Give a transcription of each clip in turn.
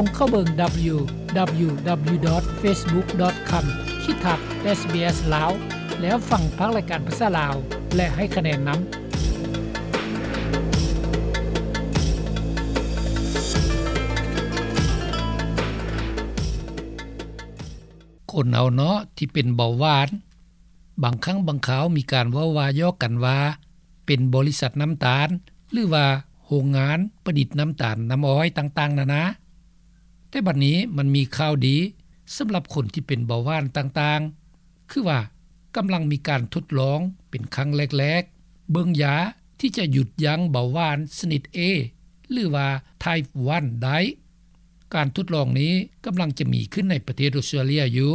ສົ່ງເຂົ້າເບິ່ງ www.facebook.com/sbslao ແລ້ວຟັງພາກລາຍການພາສາລາວ ແລະ ໃຫ້ຄະແນນນຳ. ຄົນເຮົາເນາະທີ່ເປັນເບົາຫວານ, ບາງຄັ້ງບາງຄາວມີການເວົ້າວ່າຢອກກັນວ່າ ເປັນບໍລິສັດນ້ຳຕານ ຫຼືວ່າໂຮງງານປະດິດນ້ຳຕານນ້ຳອ້ອຍຕ່າງໆນານາ. ແຕ່ບັດນີ້ມັນມີຂ່າວດີສຳລັບຄົນທີ່ເປັນເບົາຫວານຕ່າງໆ, ຄືວ່າກຳລັງມີການທົດລອງເປັນຄັ້ງແລກໆ ເບິ່ງຢາທີ່ຈະຢຸດຢັ້ງເບົາຫວານຊະນິດ A ຫຼືວ່າ Type one ໄດ້. ການທົດລອງນີ້ກຳລັງຈະມີຂຶ້ນໃນປະເທດອົດສະຕຣາເລຍຢູ່.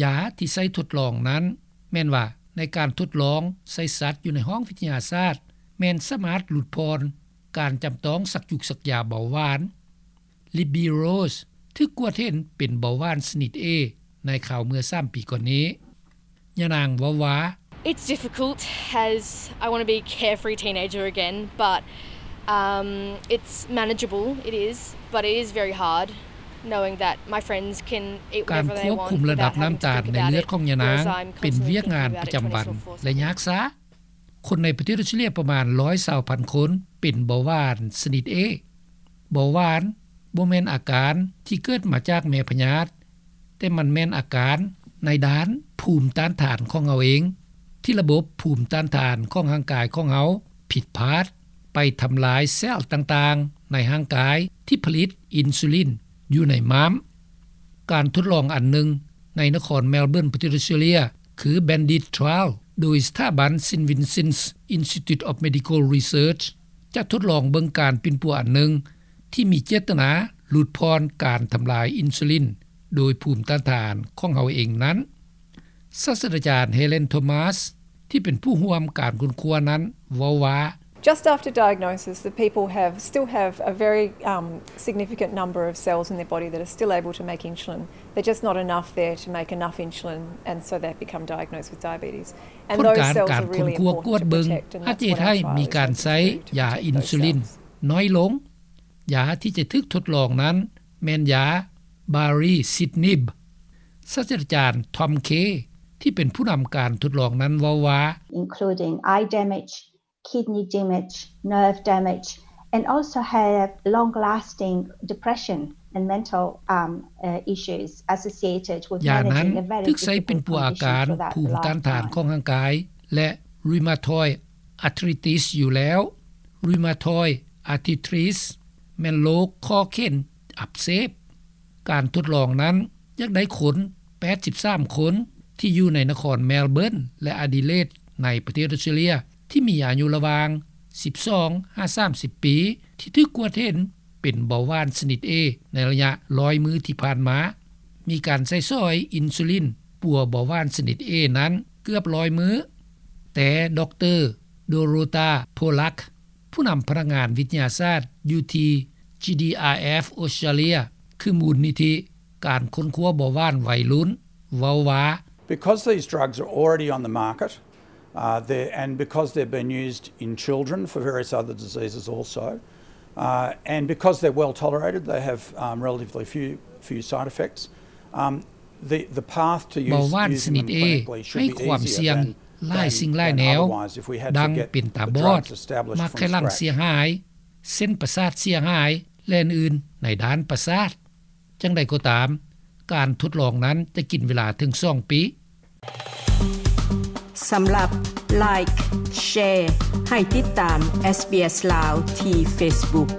ຢາທີ່ໃຊ້ທົດລອງນັ້ນ ແມ່ນວ່າໃນການທົດລອງໃສ່ສັດຢູ່ໃນຫ້ອງວິທະຍາສາດ ແມ່ນສາມາດຫຼຸດຜ່ອນການຈຳຕ້ອງສັກຢູກສັກຢາເບົາຫວານ. Libby Rose ຖືກກວດເຫັນເປັນເບົາຫວານຊະນິດ A ໃນຄາວເມື່ອສາມປີກ່ອນນີ້. ຍານາງເວົ້າວ່າ It's difficult as I want to be carefree teenager again, but um, it's manageable, it is, but it is very hard knowing that my friends can eat ການ whatever ຄ they ວບຄຸມ want ລະດັບ without ນ້ຳ having to ຕານ think ໃນ about ເລືອດ it, ຂອງຍານາງ whereas I'm ເປັນວຽກງານ constantly thinking ປະຈຳວັນ about having to take a test or force ແລະ ຍາກຊາ. ຄົນໃນປະເທດອົດສະຕຣາເລຍປະມານ ໜຶ່ງຮ້ອຍຊາວພັນຄົນ ເປັນເບົາຫວານຊະນິດ A. ເບົາຫວານບໍ່ແມ່ນອາການທີ່ເກີດມາຈາກແມ່ພະຍາດ, ແຕ່ມັນແມ່ນອາການໃນດ້ານພູມຕ້ານທານຂອງເຮົາເອງ ທີ່ລະບົບພູມຕ້ານທານຂອງຮ່າງກາຍຂອງເຮົາຜິດພາດ ໄປທຳລາຍເຊວຕ່າງໆໃນຮ່າງກາຍທີ່ຜະລິດອິນຊູລິນຢູ່ໃນມ້າມ. ການທົດລອງອັນໜຶ່ງໃນນະຄອນແມລເບີນ ປະເທດອົດສະຕຣາເລຍ ຄື Bandit Trial ໂດຍສະຖາບັນ St Vincent's Institute of Medical Research ຈະທົດລອງເບິ່ງການປິ່ນປົວອັນໜຶ່ງ ທີ່ມີເຈດຕະນາຫຼຸດຜ່ອນການທຳລາຍອິນຊູລິນໂດຍພູມຕ້ານທານຂອງເຮົາເອງນັ້ນ. ສາດສະດາຈານ Helen Thomas ທີ່ເປັນຜູ້ຮ່ວມການຄົ້ນຄວ້ານັ້ນເວົ້າວ່າ Just after diagnosis, the people have, still have a very um, significant number of cells in their body that are still able to make insulin. They're just not enough there to make enough insulin, and so they become diagnosed with diabetes. ຜົນການການຄົ້ນຄວ້າກວດເບິ່ງ ອາດຈະເຮັດໃຫ້ມີການໃຊ້ຢາອິນຊູລິນນ້ອຍລົງ. ຢາທີ່ຈະຖືກທົດລອງນັ້ນແມ່ນຢາ Baricitinib. ສາດສະດາຈານ Tom Kay ທີ່ເປັນຜູ້ນຳການທົດລອງນັ້ນເວົ້າວ່າ including eye damage, kidney damage, nerve damage, and also have long-lasting depression and mental um, uh, issues associated with ຢານັ້ນ managing a very ຖືກໃຊ້ເປັນປົວອາການ difficult condition ພູມ for that ຕ້ານທານ lifetime. ຂອງຮ່າງກາຍ ແລະ rheumatoid arthritis ຢູ່ແລ້ວ. rheumatoid arthritis ແມ່ນໂລກຂໍ້ເຂັນອັກເສບ. ການທົດລອງນັ້ນ ຢາກໄດ້ຄົນ ແປດສິບສາມຄົນ ທີ່ຢູ່ໃນນະຄອນແມລເບີນ ແລະ ອາດີເລດ ໃນປະເທດອົດສະຕຣາເລຍ ທີ່ມີອາຍຸລະຫວ່າງ ສິບສອງ ຫາ ສາມສິບປີ ທີ່ຖືກກວດເຫັນເປັນເບົາຫວານຊະນິດ A ໃນໄລຍະ ໜຶ່ງຮ້ອຍມື້ທີ່ຜ່ານມາ. ມີການໃຊ້ສອຍອິນຊູລິນປົວເບົາຫວານຊະນິດ A ນັ້ນເກືອບ ໜຶ່ງຮ້ອຍມື້. ແຕ່ ດຣ. Dorota Pollack ຜູ້ນຳພະນັກງານວິທະຍາສາດຢູ່ທີ່ GDRF ອົດສະຕຣາເລຍ ຄືມູນນິທິການຄົ້ນຄວ້າເບົາຫວານໄວລຸ້ນ ເວົ້າວ່າ Because these drugs are already on the market, uh, they're, and because they've been used in children for various other diseases also, uh, and because they're well tolerated, they have um, relatively few, few side effects. Um, the, the path to use, ເບົາຫວານຊະນິດ A ໃຫ້ຄວາມສ່ຽງຫຼາຍສິ່ງຫຼາຍແນວ ດັ່ງເປັນຕາບອດ, ໝາກໄຂ່ຫຼັງເສຍຫາຍ, ເສັ້ນປະສາດເສຍຫາຍ ແລະ ອື່ນໆ ໃນດ້ານປະສາດ. ຈັ່ງໃດກໍຕາມ, ການທົດລອງນັ້ນຈະກິນເວລາເຖິງສອງປີ. ສຳລັບ Like, Share ໃຫ້ຕິດຕາມ SBS ລາວ ທີ່ Facebook.